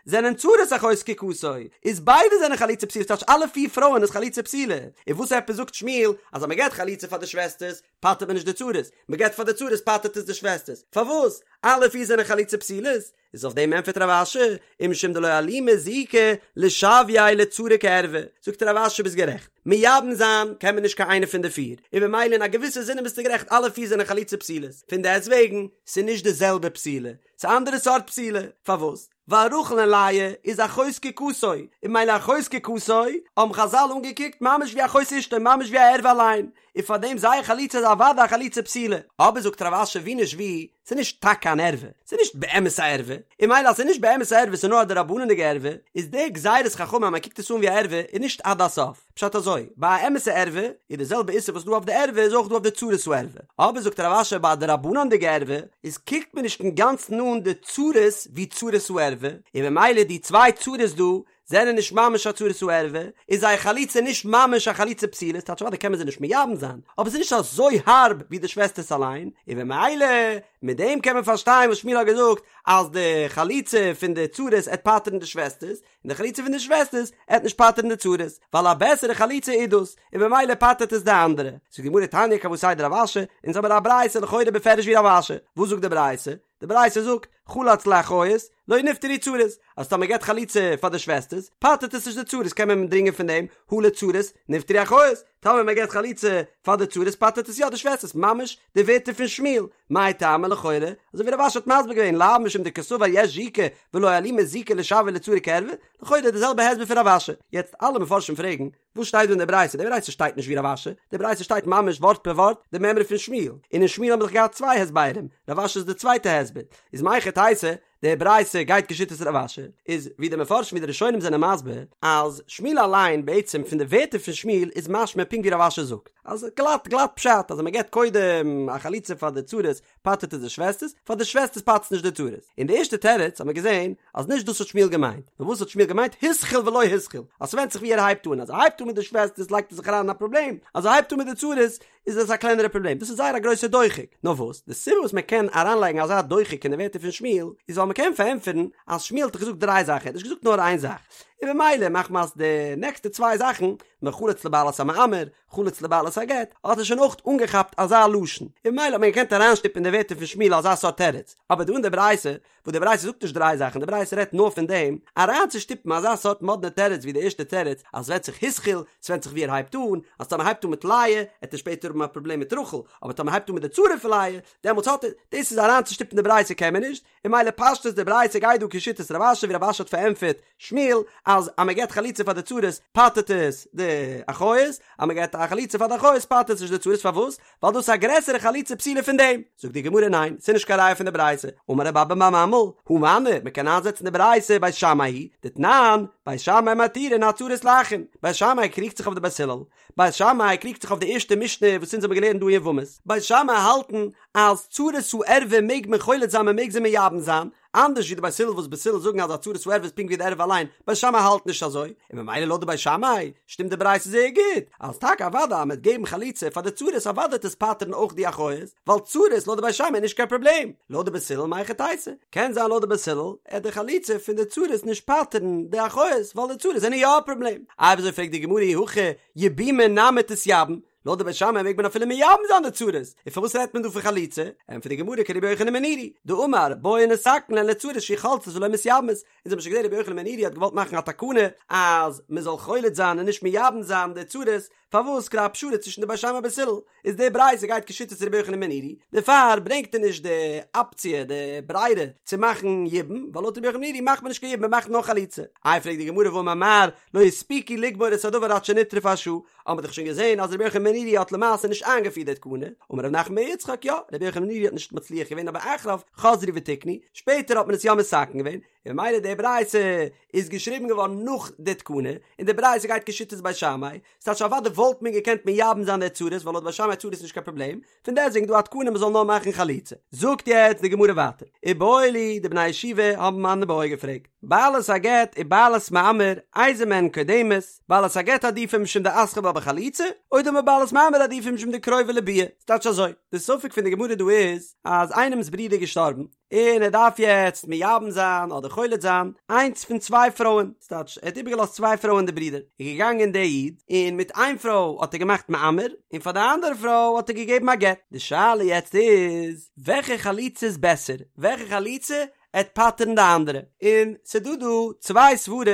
[SPEAKER 1] זענען צרת אחות זקוקתו, איז ביידע זענען חליצה פסולה, ס'טייטש אלע פיר פרויען איז חליצה פסולה, און וואס עפעס זאגט שמואל אז אז מ'געט חליצה פאר די שוועסטערס פטר'ט מען נישט די צרות, מ'געט פאר די צרות פטר'ט עס די שוועסטערס, פארוואס? אלע פיר זענען חליצה פסולות? איז אויף דעם ענטפערט רב אשי, ומשום דלא אלימא זיקה לשוייה לצרה כערווה, זאגט רב אשי ביסט גערעכט, מייבם זיין קען מען נישט קיין איינע פון די פיר, און במילא אין א געוויסע זינען ביסטו גערעכט אלע פיר זענען חליצה פסולות, פון דעסט וועגן ס'איז נישט די זעלבע פסילה, ס'איז אנדערע סארט פסילה, פארוואס? ווייל רחל און לאה איז אחות זקוקתו, און במילא אחות זקוקתו האבן חזל אנגעקוקט ממש ווי אחות אשתו ממש ווי א ערווה אליין, און פאר דעם זייער חליצה איז אוודאי א חליצה פסולה, אבער זאגט רב אשי ווי נישט ווי, ס'איז נישט טאקע אן ערווה, ס'איז נישט באמת א ערווה, און ממילא אז ס'איז נישט באמת א ערווה ס'איז נאר א דרבנן'דיגע ערווה, איז די גזירת חכמים אז מ'קוקט עס אן ווי א ערווה איז נישט עד הסוף. פשט אזוי, ביי א אמת'ע ערווה איז די זעלבע איסור וואס דא אויף די ערווה איז אויך דא אויף די צרת הערווה, אבער זאגט רב אשי ביי א דרבנן'דיגע ערווה איז קוקט מען נישט אינגאנצן אן די צרות ווי צרת הערווה, און ממילא די צוויי צרות דא זענען נישט ממש א צרת הערווה, איז זייער חליצה נישט ממש א חליצה פסולה, ס'טייטש אוודאי קען מען זיי נישט מייבם זיין, אבער ס'איז נישט אזוי הארב ווי די שוועסטערס אליין, און ממילא מיט דעם קען מען פארשטיין וואס שמואל האט געזאגט אז די חליצה פון די צרות עט פטר'ן די שוועסטערס, און די חליצה פון די שוועסטערס עט נישט פטר'ן די צרות, ווייל א בעסערע חליצה איז דאס, און ממילא פטר'ט עס די אנדערע. זאגט די גמרא תניא כוותיה דרב אשי, אונז האמיר א ברייתא לכאורה בפירוש ווי רב אשי, וואס זאגט די ברייתא? די ברייתא זאגט, חלץ לאחיות, לא נפטרו צרות, אז טאמער מ'געט חליצה פאר די שוועסטערס, פטר'ט עס נישט די צרות, קען מען דרינגען פון דעם, הא לצרות, נפטרו אחיות, טאמער מען געט חליצה פאר די צרות פטר'ט עס יא די שוועסטערס, ממש די ווערטער פון שמואל, מאי טעמא לכאורה, אזוי ווי רב אשי האט מסביר געווען, לאו משום דקסבר יש זיקה ולא אלימא זיקה לשויה לצרה כערווה, לכאורה די זעלבע הסבר פון רב אשי, יעצט אלע מפרשים פרעגן, וואס שטייט דא אין די ברייתא? די ברייתא שטייט נישט ווי רב אשי, די ברייתא שטייט ממש ווארט פער ווארט די מימרא פון שמואל, און אין שמואל האבן מיר דאך געהאט צוויי הסברים, רב אשי איז די צווייטע הסבר, איז מהיכי תיתי, די ברייתא גייט כשיטת רב אשי, איז ווי די מפרשים ווי די ראשונים זענען מסביר, אז שמואל אליין בעצם פון די ווערטער פון שמואל איז משמע פונקט ווי רב אשי זאגט, אז גלאט גלאט פשט אז מען געבט קודם א חליצה פאר די צרות פטר'ט עס די שוועסטערס, פאר די שוועסטערס פטר'ט עס נישט די צרות. און די ערשטע תירוץ האט מען געזען אז נישט דאס האט שמואל געמיינט, נאר וואס האט שמואל געמיינט התחיל ולא התחיל, אז ס'ווענדט זיך ווי ער הייבט אן, אז ער הייבט אן מיט די שוועסטערס לייגט ער זיך אריין אין א פראבלעם, אז ער הייבט אן מיט די צרות איז עס א קלענערע פראבלעם, דאס איז זייער א גרויסע דוחק. נאר וואס, די סיבה וואס מען קען אריינלייגן אזא דוחק אין די ווערטער פון שמואל, איז ווייל מען קען פארענטפערן אז שמואל האט דאך געזאגט דריי זאכן, ער האט נישט געזאגט נאר איין זאך, און במילא מחמת די נעקסטע צוויי זאכן, מחלץ לבעלת המאמר, חלץ לבעלת הגט, האט ער שוין אויך אנגעכאפט אזא לשון, און במילא האט מען געקענט אריינשטופן אין די ווערטער פון שמואל אזא סארט תירוץ, אבער דא אין די ברייתא, וואס די ברייתא זאגט נישט דריי זאכן, די ברייתא רעדט נאר פון דעם, אריינצושטופן אזא סארט מאדנע תירוץ ווי די ערשטע תירוץ, אז ס'ווענדט זיך התחיל, ס'ווענדט זיך ווי ער הייבט אן, אז טאמער הייבט אן מיט לאה, עט ער שפעטער האבן א פראבלעם מיט רחל, אבער טאמער הייבט אן מיט די צרה פון לאה, דעמאלטס האט ער, דאס איז אריינצושטופן די ברייתא קען מען נישט, און ממילא פשטות די ברייתא גייט דא כשיטת רב אשי ווי רב אשי האט פארענטפערט שמואל אז אז מען געבט חליצה פאר די צרות פטר'ט עס די אחיות, אז מען געבט א חליצה פאר די אחיות פטר'ט עס נישט די צרות פארוואס? ווייל דאס איז א גרעסערע חליצה פסולה פון דעם. זאגט די גמרא ניין ס'איז נישט קיין ראיה פון די ברייתא, אמר רב אבא בר ממל הא מני מען קען איינזעצן די ברייתא בית שמאי היא דתנן בית שמאי מתירין הצרות לאחים, בית שמאי קריגט זיך אויף די בית הלל, בית שמאי קריגט זיך אויף די ערשטע משנה וואס אונז האבן געלערנט דא אין יבמות, בית שמאי האלטן אז צרת הערווה מעג מען חולץ זיין מען מעג זיי מייבם זיין, אנדערש ווי די בית הלל וואס בית הלל זאגן אז א צרת הערווה איז פונקט ווי די ערווה אליין, בית שמאי האלט נישט אזוי, און ממילא לויט די בית שמאי שטימט די ברייתא זייער גוט, אז טאקע אוודאי אז מען וועט געבן חליצה פאר די צרות אוודאי וועט עס פטר'ן אויך די אחיות, ווייל צרות לויט די בית שמאי איז נישט קיין פראבלעם, לויט די בית הלל מהיכי תיתי, קען זיין לויט די בית הלל עט די חליצה פון די צרות נישט פטר'ן די אחיות ווייל די צרות זענען יא א פראבלעם, איי וויאזוי פרעגט די גמרא אי הכי יבומי נמי תתייבם, לויט די בית שמאי מעג מען אפילו מייבם זיין די צרות, און פארוואס רעדט מען דא פון חליצה? ענטפערט די גמרא כרבי יוחנן בן נורי, דאמר בואו נתקן להן לצרות שיהו חולצות ולא מתייבמות, אונז האבן שוין געזען רבי יוחנן בן נורי האט געוואלט מאכן א תקנה אז מען זאל חולץ זיין און נישט מייבם זיין די צרות, פארוואס כדי א פשרה צווישן די בית שמאי בית הלל, איז די ברייתא גייט כשיטת רבי יוחנן בן נורי, דערפאר ברענגט ער נישט די אפציע די ברירה צו מאכן יבום, ווייל לויט רבי יוחנן בן נורי מאכט מען נישט קיין יבום מען מאכט נאר חליצה. איי פרעגט די גמרא והאמר מר לא הספיקו לגמור את הדבר עד שנטרפה השעה, האט מען דאך שוין געזען אז רבי יוחנן בן נורי האט למעשה נישט איינגעפירט די תקנה, אמר רב נחמן בר יצחק יא, רבי יוחנן בן נורי האט נישט מצליח געווען אבער אחריו חזרו ותיקנו, שפעטער האט מען עס יא מתקן געווען, און ממילא די ברייתא איז געשריבן געווארן נאך די תקנה, און די ברייתא גייט כשיטת בית שמאי, ס'טייטש אוודאי וואלט מען געקענט מייבם זיין די צרות ווייל לויט בית שמאי צרות איז נישט קיין פראבלעם, פון דעסטוועגן דא א תקנה מ'זאל נאר מאכן חליצה. זאגט יעצט די גמרא ווייטער, איבעיא להו, די בני הישיבה האבן אן איבעיא געפרעגט, בעלת הגט ובעלת מאמר, איזו מהן קודמת, בעלת הגט עדיפא משום דאתחיל בה בחליצה, או דלמא בעלת מאמר עדיפא משום דקרובה לביאה, ס'טייטש אזוי, די ספק פון די גמרא דא איז, אז איינעמ'ס ברודער איז געשטארבן, און ער דארף יעצט מייבם זיין אדער חולץ זיין איינס פון צוויי פרויען, ס'טייטש ער האט איבערגעלאזט צוויי פרויען די ברודער, איז געגאנגען דער איד און מיט איין פרוי האט ער געמאכט מאמר און פאר די אנדערע פרוי האט ער געגעבן א גט, די שאלה יעצט איז וועלכע חליצה איז בעסער, וועלכע חליצה עט פטר'ן די אנדערע, און ס'דא דא צוויי סברות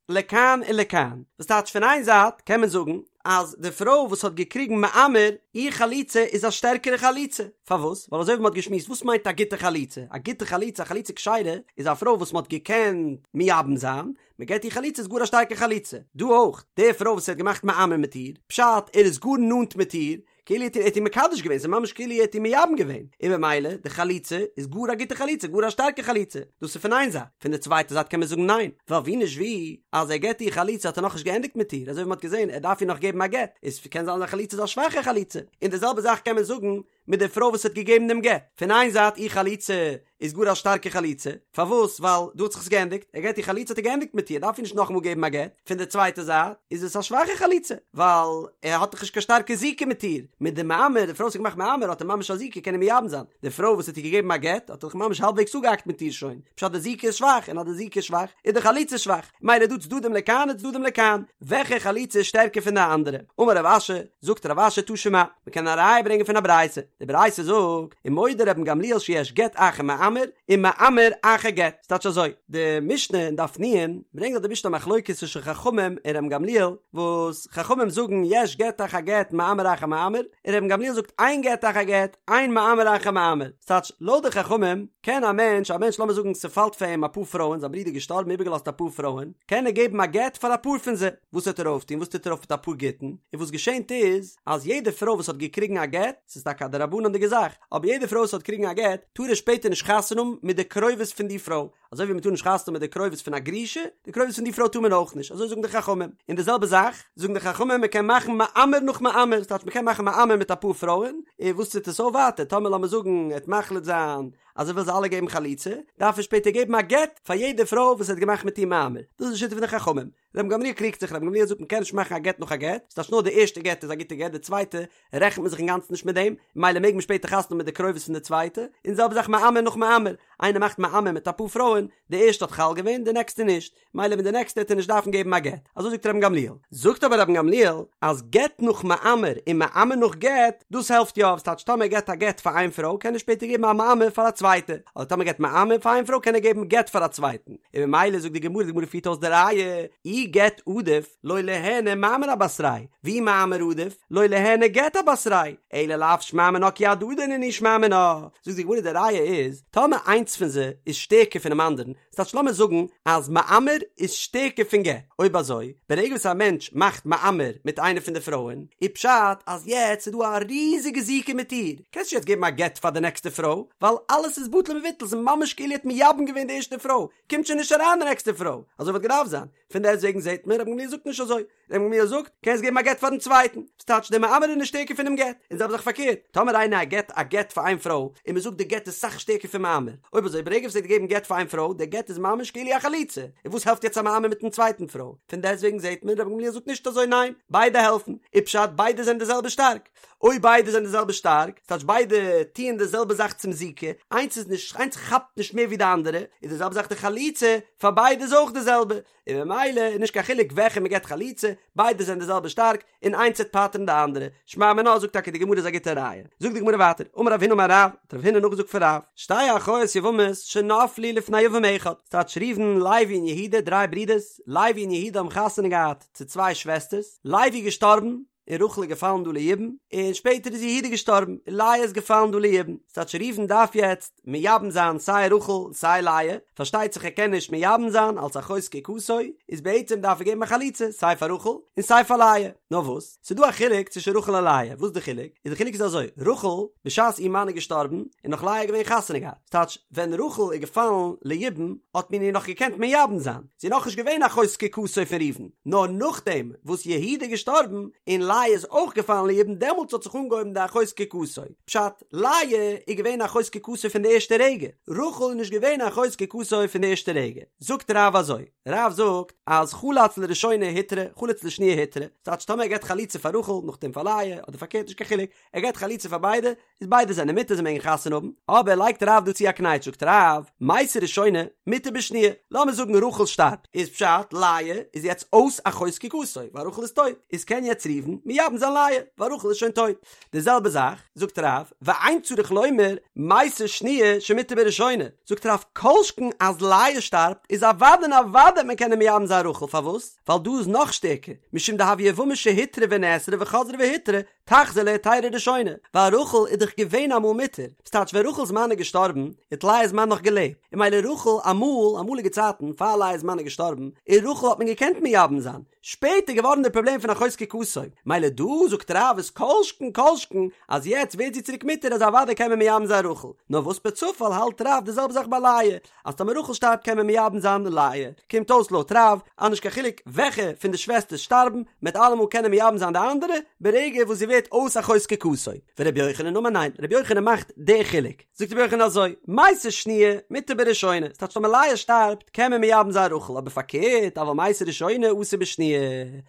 [SPEAKER 1] לכאן און לכאן, וואס טייטש פון איין זייט קען מען זאגן אז די פרוי וואס האט געקריגן מאמר, איר חליצה איז א שטערקערע חליצה. פארוואס? ווייל אזוי ווי מ'האט געשמועסט, וואס מיינט א גוטע חליצה? א גוטע חליצה, א חליצה כשרה, איז א פרוי וואס מ'האט געקענט מייבם זיין, מ'געט איר חליצה איז גאר א שטארקע חליצה. דא אויך, די פרוי וואס ער האט געמאכט מאמר מיט איר, פשט, ער איז גאר נאנט מיט איר, כאילו ער האט איר מקדש געווען, ס'איז ממש כאילו ער האט איר מייבם געווען, און במילא די חליצה איז גאר א גוטע חליצה, גאר א שטארקע חליצה, דאס איז פון איין זייט, פון די צווייטע זייט קען מען זאגן ניין, ווייל ווי נישט ווי, אז ער געבט איר חליצה האט ער נאכנישט געענדיגט מיט איר, אזוי ווי מ'האט געזען ער דארף איר נאך געבן א גט, איז קען זיין אז די חליצה איז א שוואכע חליצה, און די זעלבע זאך קען מען זאגן מיט די פרוי וואס האט געגעבן דעם גט, פון איין זייט איר חליצה איז גאר א שטארקע חליצה, פארוואס? ווייל דא האט זיך עס געענדיגט, ער געט איר חליצה האט ער געענדיגט מיט איר, דארף איר נישט נאכאמאל געבן א גט, פון די צווייטע זייט איז עס א שוואכע חליצה, ווייל ער האט דאך נישט קיין שטארקע זיקה מיט איר, מיט די מאמר, די פרוי וואס האט געמאכט מאמר האט ער ממש א זיקה קען ער מייבם זיין, די פרוי וואס האט איר געגעבן א גט האט ער דאך ממש האלבוועגס אפגעהאקט מיט איר שוין, פשט די זיקה איז שוואך, און אז די זיקה איז שוואך איז די חליצה שוואך, מילא דא צדדים לכאן און צדדים לכאן, וועלכע חליצה איז שטערקער פון די אנדערע? אמר רב אשי, זאגט רב אשי תא שמע, מען קען א ראיה ברענגען פון א ברייתא, די ברייתא זאגט, ומודה רבן גמליאל שיש גט אחר מאמר, ומאמר אחר גט, ס'טייטש אזוי, די משנה אין דף נ' ברענגט דארט די משנה א מחלוקת צווישן חכמים און רבן גמליאל, וואס חכמים זאגן יש גט אחר גט מאמר אחר מאמר, און רבן גמליאל זאגט אין גט אחר גט, אין מאמר אחר מאמר, ס'טייטש לויט די חכמים קען א מענטש, א מענטש לאמיר זאגן ס'פאלט פאר אים אפאר פרויען, זיין ברודער איז געשטארבן איבערגעלאזט אפאר פרויען, קען ער געבן א גט פאר אפאר פון זיי. וואס וועט ער אויפטון? וואס טוט ער אויף מיט אפאר גיטין? און וואס געשענט איז, אז יעדע פרוי וואס האט געקריגן א גט, ס'איז טאקע א דרבנן'דיגע זאך, אבער יעדע פרוי וואס האט געקריגן א גט, טאר ער שפעטער נישט חתונה האבן מיט די קרובות פון די פרוי, אזוי ווי מ'טאר נישט חתונה האבן מיט די קרובות פון א גרושה, די קרובות פון די פרוי טאר מען אויך נישט, אזוי זאגן די חכמים. און די זעלבע זאך, זאגן די חכמים, מ'קען מאכן מאמר נאך מאמר, ס'טייטש מ'קען מאכן מאמר מיט אפאר פרויען, און וואס טוט עס אויף ווייטער, טאמער לאמיר זאגן ער וועט מחליט זיין אז ער וויל זיי אלע געבן חליצה, דארף ער שפעטער געבן א גט פאר יעדע פרוי וואס ער האט געמאכט מיט איר מאמר, דאס איז די שיטה פון די חכמים. רבן גמליאל קריגט זיך, רבן גמליאל זאגט מ'קען נישט מאכן א גט נאך א גט, ס'טייטש נאר די ערשטע גט איז א גוטע גט, די צווייטע רעכנט מען זיך אינגאנצן נישט מיט דעם, ממילא מעג מען שפעטער חתונה האבן מיט די קרובות פון די צווייטע, און די זעלבע זאך מאמר נאך מאמר, איינער מאכט מאמר מיט אפאר פרויען, די ערשטע האט חל געווען, די נעקסטע נישט, ממילא מיט די נעקסטע העט ער נישט דארפן געבן א גט, אזוי זאגט רבן גמליאל. זאגט אבער רבן גמליאל אז גט נאך מאמר און מאמר נאך גט, דאס העלפט יא, ס'טייטש טאמער ער געט א גט פאר איין פרוי קען ער שפעטער געבן א מאמר פאר א צווייטע, אדער טאמער געט מאמר פאר איין פרוי קען ער געבן גט פאר א צווייטן. און ממילא זאגט די גמרא, די גמרא פירט אויס די ראיה, אי גט עדיף לא ליהני מאמר אבתריה, ואי מאמר עדיף לא ליהני גט אבתריה, אלא לאו שמע מינה כי הדדי נינהו שמע מינה. זאגט די גמרא די ראיה איז, טאמער איינס פון זיי איז שטערקער פונעם אנדערן, ס'טייטש לאמיר זאגן אז מאמר איז שטערקער פון גט, אויב אזוי, ברגע וואס א מענטש מאכט מאמר מיט איינע פון די פרויען, איז פשט אז יעצט איז דא א ריזיגע זיקה מיט איר, קענסט נישט יעצט געבן א גט פאר די נעקסטע פרוי, ווייל אלעס איז בטל ומבוטל, ס'איז ממש כאילו ער האט מייבם געווען די ערשטע פרוי, קומט שוין נישט אריין די נעקסטע פרוי, אזוי וואלט געדארפט זיין, פון דעסטוועגן זעט מען רבן גמליאל זאגט נישט אזוי, רבן גמליאל זאגט, קענסט געבן א גט פארן צווייטן, ס'טייטש דער מאמר איז נישט שטערקער פונעם גט, און זעלבע זאך פארקערט, טאמער איינער געט א גט פאר איין פרוי, און מ'זאגט די גט איז סאך שטערקער פון מאמר, אויב אזוי ברגע וואס ער האט געגעבן גט פאר איין פרוי, דער גט איז ממש כאילו א חליצה, און וואס העלפט יעצט א מאמר מיטן צווייטן פרוי, פון דעסטוועגן זעט מען רבן גמליאל זאגט נישט אזוי ניין, ביידע העלפן, איז פשט ביידע זענען די זעלבע שטארק. אויב ביידע זענען די זעלבע שטארק, ס'טייטש ביידע טוען די זעלבע זאך צום זיקה, איינס איז נישט, איינס כאפט נישט מער ווי די אנדערע, איז די זעלבע זאך די חליצה, פאר ביידע איז אויך די זעלבע, און ממילא איז נישט קיין חילוק וועלכע מ'געט חליצה, ביידע זענען די זעלבע שטארק, און איינס וועט פטר'ן די אנדערע. שמע מינה זאגט טאקע די גמרא איז א גוטע ראיה. זאגט די גמרא ווייטער, אמר רב הונא אמר רב, האט רב הונא נאכגעזאגט פון רב, שתי אחיות יבמות שנפלו לפני יבם אחד, ס'טייטש ראובן, לוי און יהודה, דריי ברידערס, לוי און יהודה האבן חתונה געהאט צו צוויי שוועסטערס, לוי איז געשטארבן, און רחל איז געפאלן דא ליבום, און שפעטער איז יהודה געשטארבן, און לאה איז געפאלן דא ליבום, ס'טייטש ראובן דארף יעצט מייבם זיין סיי רחל און סיי לאה, פארשטייט זיך ער קען נישט מייבם זיין אלס אחות זקוקתו, איז בעצם דארף ער געבן א חליצה סיי פאר רחל און סיי פאר לאה, נאר וואס, ס'איז דא א חילוק צווישן רחל און לאה, וואס איז די חילוק? איז די חילוק איז אזוי, רחל, בשעת איר מאן איז געשטארבן, איז נאך לאה געווען חתונה געהאט, ס'טייטש ווען רחל איז געפאלן ליבום האט מען איר נאך געקענט מייבם זיין, זי איז נאכנישט געווען אחות זקוקתו פון ראובן, נאר נאכדעם וואס יהודה איז געשטארבן און לאה איז אויך געפאלן ליבום דעמאלטס האט זיך אנגעהויבן די אחות זקוקתו, פשט, לאה איז געווען אחות זקוקתו פון די ערשטע רגע, רחל איז נישט געווען אחות זקוקתו פון די ערשטע רגע. זאגט רב אזוי, רב זאגט אז חלץ לראשונה הותרה, חלץ לשניה הותרה, ס'טייטש טאמער ער געבט חליצה פאר רחל נאכדעם פאר לאה, אדער פארקערט נישט קיין חילוק, ער געבט חליצה פאר ביידע, איז ביידע זענען מותר זיי מעגן חתונה האבן, אבער לייגט רב דא צו א קנייטש זאגט רב, מתה ראשונה, מותר בשניה, לאמיר זאגן רחל שטארבט, איז פשט לאה איז יעצט אויס אחות זקוקתו, ווייל רחל איז טויט, איז קען יעצט ראובן מייבם זיין לאה, ווייל רחל איז שוין טויט. די זעלבע זאך, זאגט רב, ואין צריך לומר, מתה שניה שמותר בראשונה, זאגט רב כל שכן אז לאה שטארבט איז אוודאי און אוודאי וועט מען קענען מייבם זיין רחל, פארוואס? ווייל דא איז נאך שטערקער, משום דהויא יבמה שהותרה ונאסרה וחזרה והותרה, תחזור להיתירה ראשונה, ווייל רחל איז דאך געווען אמאל מותר, ס'טייטש ווען רחל'ס מאן איז געשטארבן, האט לאה'ס מאן נאך געלעבט, און ממילא רחל אמאל, אמאליגע צייטן, פאר לאה'ס מאן איז געשטארבן, און רחל האט מען געקענט מייבם זיין, שפעטער געווארן די פראבלעם פון אחות זקוקתו, מילא דא זאגט רב איז כל שכן כל שכן אז יעצט ווערט זי צוריק מותר אז אוודאי קען מען מייבם זיין רחל, נאר וואס פערצופאל האלט רב די זעלבע זאך ביי לאה, אז טאמער רחל שטארבט קען מען מייבם זיין לאה, קומט אויס לויט רב אז נישט קיין חילוק וועלכע פון די שוועסטערס שטארבן, מ'עט אלעמאל קענען מייבם זיין די אנדערע, ברגע וואס זי ווערט אויס אחות זקוקתו. ורבי יוחנן אמר ניין, רבי יוחנן מאכט די חילוק, זאגט רבי יוחנן אזוי, מתה שניה מותר בראשונה, ס'טייטש טאמער לאה שטארבט קען מען מייבם זיין רחל, אבער פארקערט אבל מתה ראשונה אסור בשניה,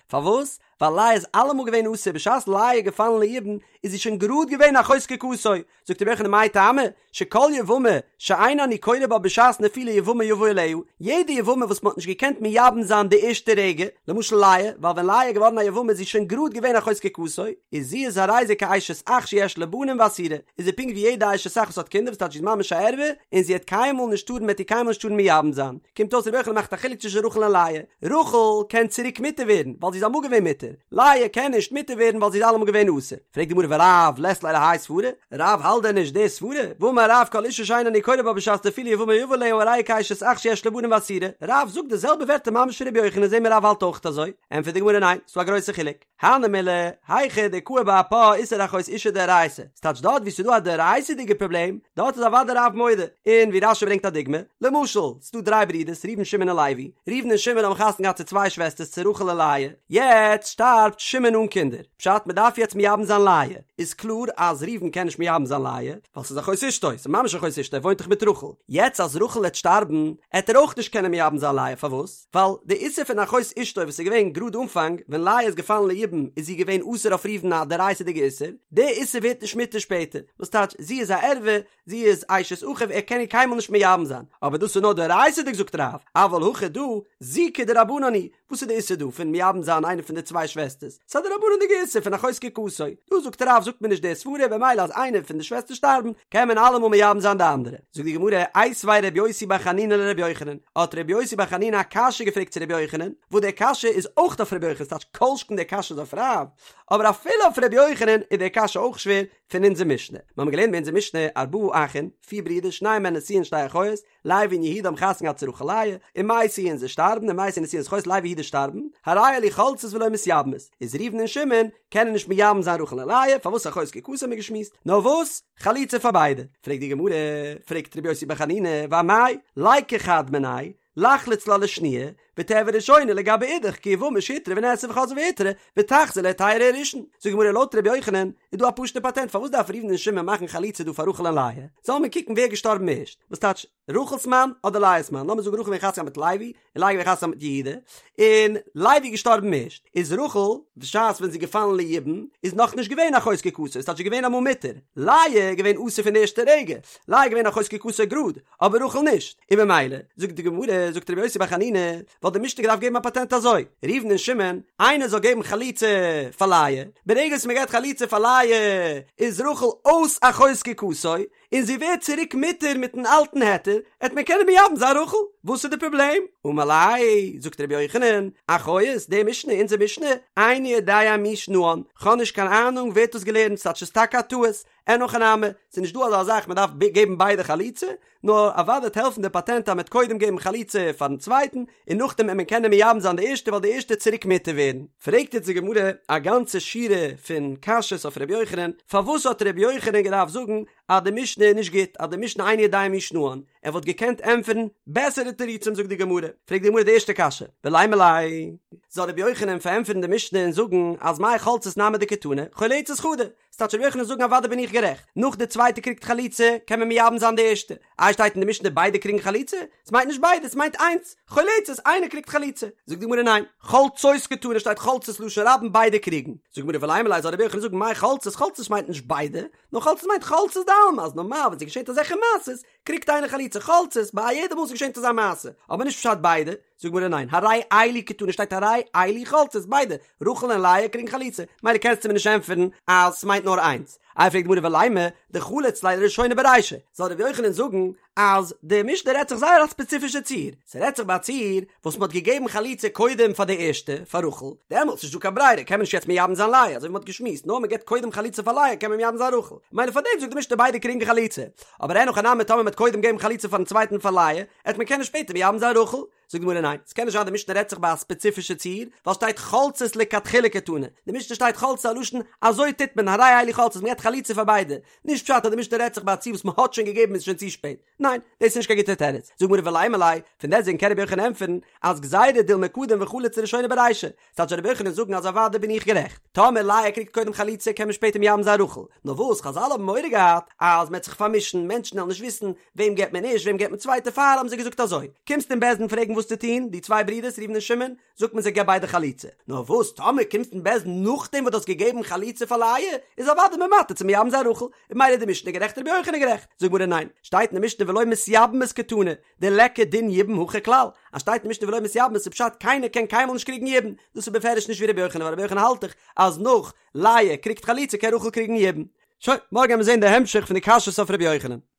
[SPEAKER 1] פארוואס? ווייל לאה איז אלעמאל געווען אסור, בשעת לאה איז געפאלן ליבום איז זי שוין גראד געווען אחות זקוקתו, זאגט רבי יוחנן מאי טעמא, שכל יבמה שאין אני קורא בה בשעת נפילה יבמה יבא עליה, יעדע יבמה וואס מען האט נישט געקענט מייבם זיין די ערשטע רגע, למשל לאה, ווייל ווען לאה איז געווארן א יבמה איז זי שוין גראד געווען אחות זקוקתו, איז זי איז הרי זה כאשת אח שיש לה בנים ואסורה, איז זי פונקט ווי יעדע אשת אח וואס האט קינדער וואס טייטש זי איז ממש א ערווה, און זי העט קיינמאל נישט טארן מ'עט איר קיינמאל נישט טארן מייבם זיין. קומט אויס רבי יוחנן מאכט א חילוק צווישן רחל און לאה, רחל קען צוריק מותר ווערן ווייל זי איז אמאל געווען מותר, לאה קען נישט מותר ווערן ווייל זי איז אלעמאל געווען אסור. פרעגט די גמרא ורב לית ליה להאי סברא, רב האלט דען נישט די סברא? והאמר רב כל אשה שאין אני קורא בה בשעת נפילה יבמה יבא עליה הרי היא כאשת אח שיש לה בנים ואסורה, רב זאגט די זעלבע ווערטער ממש פון רבי יוחנן זעהן מיר רב האלט אויך אזוי, ענטפערט די גמרא ניין, ס'דא א גרויסע חילוק. הני מילי, היכא דקאי באפה איסור אחות אשה דאורייתא, ס'טייטש דארט וואו ס'איז דא א דאורייתא'דיגע פראבלעם, דארט איז אוודאי רב מודה, און ווי רש"י ברענגט א דוגמא, למשל, ס'איז דא דריי ברידערס ראובן שמעון און לוי, ראובן און שמעון האבן חתונה געהאט צו צוויי שוועסטערס צו רחל און לאה, יעצט שטארבט שמעון אן קינדער, פשט מ'דארף יעצט מייבם זיין לאה, איז קלאר אז ראובן קען נישט מייבם זיין לאה, ווייל ס'איז אחות אשתו, ס'איז ממש אחות אשתו, ער וואוינט דאך מיט רחל, יעצט אז רחל העט שטארבן, העט ער אויך נישט קענען מייבם זיין לאה, פארוואס? ווייל די איסור פון אחות אשתו וואס איז געווען גראד אנפאנג ווען לאה איז געפאלן ליבום איז זי געווען אסור אויף ראובן א דאורייתא'דיגע איסור, די איסור ווערט נישט מותר שפעטער, וואס טייטש זי איז א ערווה, זי איז אשת אחיו ער קען איר קיינמאל נישט מייבם זיין, אבער דאס איז נאר דאורייתא'דיג זאגט רב, אבל הכא דא, זיקה דרבנן היא, וואס איז די איסור דא פון מייבם זיין איינע פון די צוויי שוועסטערס? ס'איז א דרבנן'דיגע איסור פון אחות זקוקתו, דא זאגט רב זאגט מען נישט די סברא במילא אז איינע פון די שוועסטער שטארבן קען מען אלעמאל מייבם זיין די אנדערע. זאגט די גמרא, איתיביה רבי יוסי בר חנינא לרבי יוחנן, האט רבי יוסי בר חנינא א קשיא געפרעגט צו רבי יוחנן, וואס די קשיא איז אויך אויף רבי יוחנן, ס'טייטש כל שכן די קשיא איז אויף רב, אבער אפילו אויף רבי יוחנן איז די קשיא אויך שווער פון אונזער משנה. מיר האבן געלערנט ביי אונזער משנה, ארבעה אחין, פיר ברידער, שנים מהן נשואין שתי אחיות, לוי און יהודה האבן חתונה געהאט צו רחל לאה, ומתו און זיי שטארבן, ומתו נשואין אחיות לוי יהודה שטארבן, הרי אלו חולצות ולא מתייבמות, איז ראובן און שמעון קענען נישט מייבם זיין רחל און לאה, פארוואס אחות זקוקתו האבן מיר געשמועסט, נאר וואס? חליצה פאר ביידע. פרעגט די גמרא, פרעגט רבי יוסי בר חנינא, ואמאי, ליקו חד מינייהו, לחלוץ לה לשניה, ותיעביד ראשונה לגבי אידך כיבמה שהותרה ונאסרה וחזרה והותרה, ותחזור להיתירה הראשון. זאגט די גמרא לויט רבי יוחנן איז דא א פשוטע פאטענט פארוואס דארף ראובן און שמעון מאכן חליצה דא פאר רחל און לאה? זאל מען קוקן ווער איז געשטארבן ערשט, וואס טייטש רחל'ס מאן אדער לאה'ס מאן, לאמיר זאגן רחל געווען חתונה מיט לוי, און לאה געווען חתונה מיט יהודה, און לוי איז געשטארבן ערשט, איז רחל, בשעת ווען זי איז געפאלן ליבום, איז נאך נישט געווען אחות זקוקתו, ס'טייטש זי איז געווען אמאל מותר, לאה איז געווען אסור פון די ערשטע רגע, לאה איז געווען אחות זקוקתו גראד, אבער רחל נישט, און במילא, זאגט די גמרא, זאגט רבי יוסי בר חנינא, וואלט די משנה געדארפט געבן א פאטענט אזוי, ראובן און שמעון, איינער זאל געבן חליצה פאר לאה, ברגע וואס מען געבט חליצה פאר לאה, איז רחל אויס אחות זקוקתו, און זי ווערט צוריק מותר מיטן אלטן היתר, עט מען קענען מייבם זיין רחל, וואס איז די פראבלעם? אמר ליה, זאגט רבי יוחנן, אחיות, די משנה, אונזער משנה, איני יודע מי שנאן, כ'האב נישט קיין אהנונג ווער האט דאס געלערנט, ס'טייטש ס'איז טאקע א טעות, אין הכי נמי, ס'איז נישט דא אזא זאך מען דארף געבן ביידע חליצה, נאר אוודאי וועט העלפן די פאטענט אז מ'עט קודם געבן חליצה פארן צווייטן, און נאכדעם עט מען קענען מייבם זיין די ערשטע ווייל די ערשטע עט צוריק מותר ווערן. פרעגט יעצט די גמרא א גאנצע שורה פון קשיות אויף ר' יוחנן, פארוואס האט ר' יוחנן געדארפט זאגן אז די משנה איז נישט גוט, אז די משנה איני יודע מי שנאן, ער וואלט געקענט ענטפערן בעסערע תירוצים זאגט די גמרא, פרעגט די גמרא די ערשטע קשיא, ולימא ליה, זאל ר' יוחנן פארענטפערן די משנה און זאגן אז מאי חולצות נמי דקתני, חולצות חדא, ס'טייטש רבי יוחנן זאגן אוודאי בין איך גערעכט, נאך די צווייטע קריגט חליצה קען מען מייבם זיין די ערשטע, איי שטייט אין די משנה ביידע קריגן חליצה? ס'מיינט נישט ביידע ס'מיינט איינס, חולצות איינער קריגט חליצה, זאגט די גמרא ניין, חולצות קתני שטייט חולצות לשון רבים ביידע קריגן, זאגט די גמרא ולימא ליה זאל רבי יוחנן זאגן מאי חולצות חולצות מיינט נישט ביידע, נאר חולצות מיינט חולצות דעלמא אז נארמאל ווען ס'געשענט אזעלכע מעשות קריגט איינער חליצה חולצות ביי א יעדע מאל ס'געשענט אזא מעשה, אבער נישט פשט ביידע, זאגט די גמרא ניין, הרי אלו קתני שטייט הרי אלו חולצות ביידע, רחל און לאה קריגן חליצה, מילא קענסטו מיר נישט ענטפערן אז ס'מיינט נאר איינס. איי פרעגט די גמרא ולימא דחליץ ליה לראשונה ברישא, זאל ר' יוחנן זאגן אז די משנה רעדט זיך זייער א ספעציפישע ציור, ס'רעדט זיך ביי א ציור וואס מ'האט געגעבן חליצה קודם פאר די ערשטע, פאר רחל, דעמאלטס נישט דא קיין ברירה קען מען נישט יעצט מייבם זיין לאה, אזוי ווי מ'האט געשמועסט, נאר מ'געבט קודם חליצה פאר לאה קען מען מייבם זיין רחל, ממילא פאר דעם זאגט די משנה ביידע קריגן חליצה, אבער אין הכי נמי טאמער מ'האט קודם געגעבן חליצה פארן צווייטן פאר לאה, עט מען קענען שפעטער מייבם זיין רחל. זאגט די גמרא ניין, ס'קען נישט זיין די משנה רעדט זיך ביי א ספעציפישע ציור, ווייל שטייט חולצות לכתחילה קתני, די משנה שטייט חולצות א לשון אזוי טוט מען הרי אלו חולצות מ'געבט חליצה פאר ביידע, נישט פשט אז די משנה רעדט זיך ביי א ציור וואס מ'האט שוין געגעבן איז שוין צו שפעט, ניין, דאס איז נישט קיין גוטע תירוץ, זאגט די גמרא ולימא ליה, פון דעסטוועגן קען רבי יוחנן ענטפערן אז גזירה דילמא קדים וחליץ לראשונה ברישא, ס'טייטש רבי יוחנן זאגן אז אוודאי בין איך גערעכט, טאמער לאה קריגט קודם חליצה קען מען שפעטער מייבם זיין רחל, נאר וואס חזל האבן מורא געהאט אז מ'עט זיך פארמישן, מענטשן וועלן נישט וויסן וועם געבט מען ערשט וועם געבט מען צווייט דערפאר האבן זיי געזאגט אזוי, קומסט אין בית דין פרעגן וואס צו טון, די צוויי ברידערס ראובן און שמעון, זאגט מען זיי געב ביידע חליצה, נאר וואס טאמער קומסט אין בית דין נאכדעם וואס דו האסט געגעבן חליצה פאר לאה, איז אוודאי מען מתיר צו מייבם זיין רחל, און ממילא איז די משנה גערעכט רבי יוחנן גערעכט, זאגט גמרא ניין, שטייט אין די משנה ולא מתייבמות קתני, דליכא דין יבום הכא כלל, אז שטייט אין משנה ולא מתייבמות איז פשט קיינער קען קיינמאל נישט קריגן יבום, דאס איז בפירוש נישט ווי רבי יוחנן ווייל רבי יוחנן האלט דאך אז נאך לאה קריגט חליצה קען רחל קריגן יבום. שוין, מארגן וועלן מיר זען די המשך פון די קשיות אויף רבי יוחנן.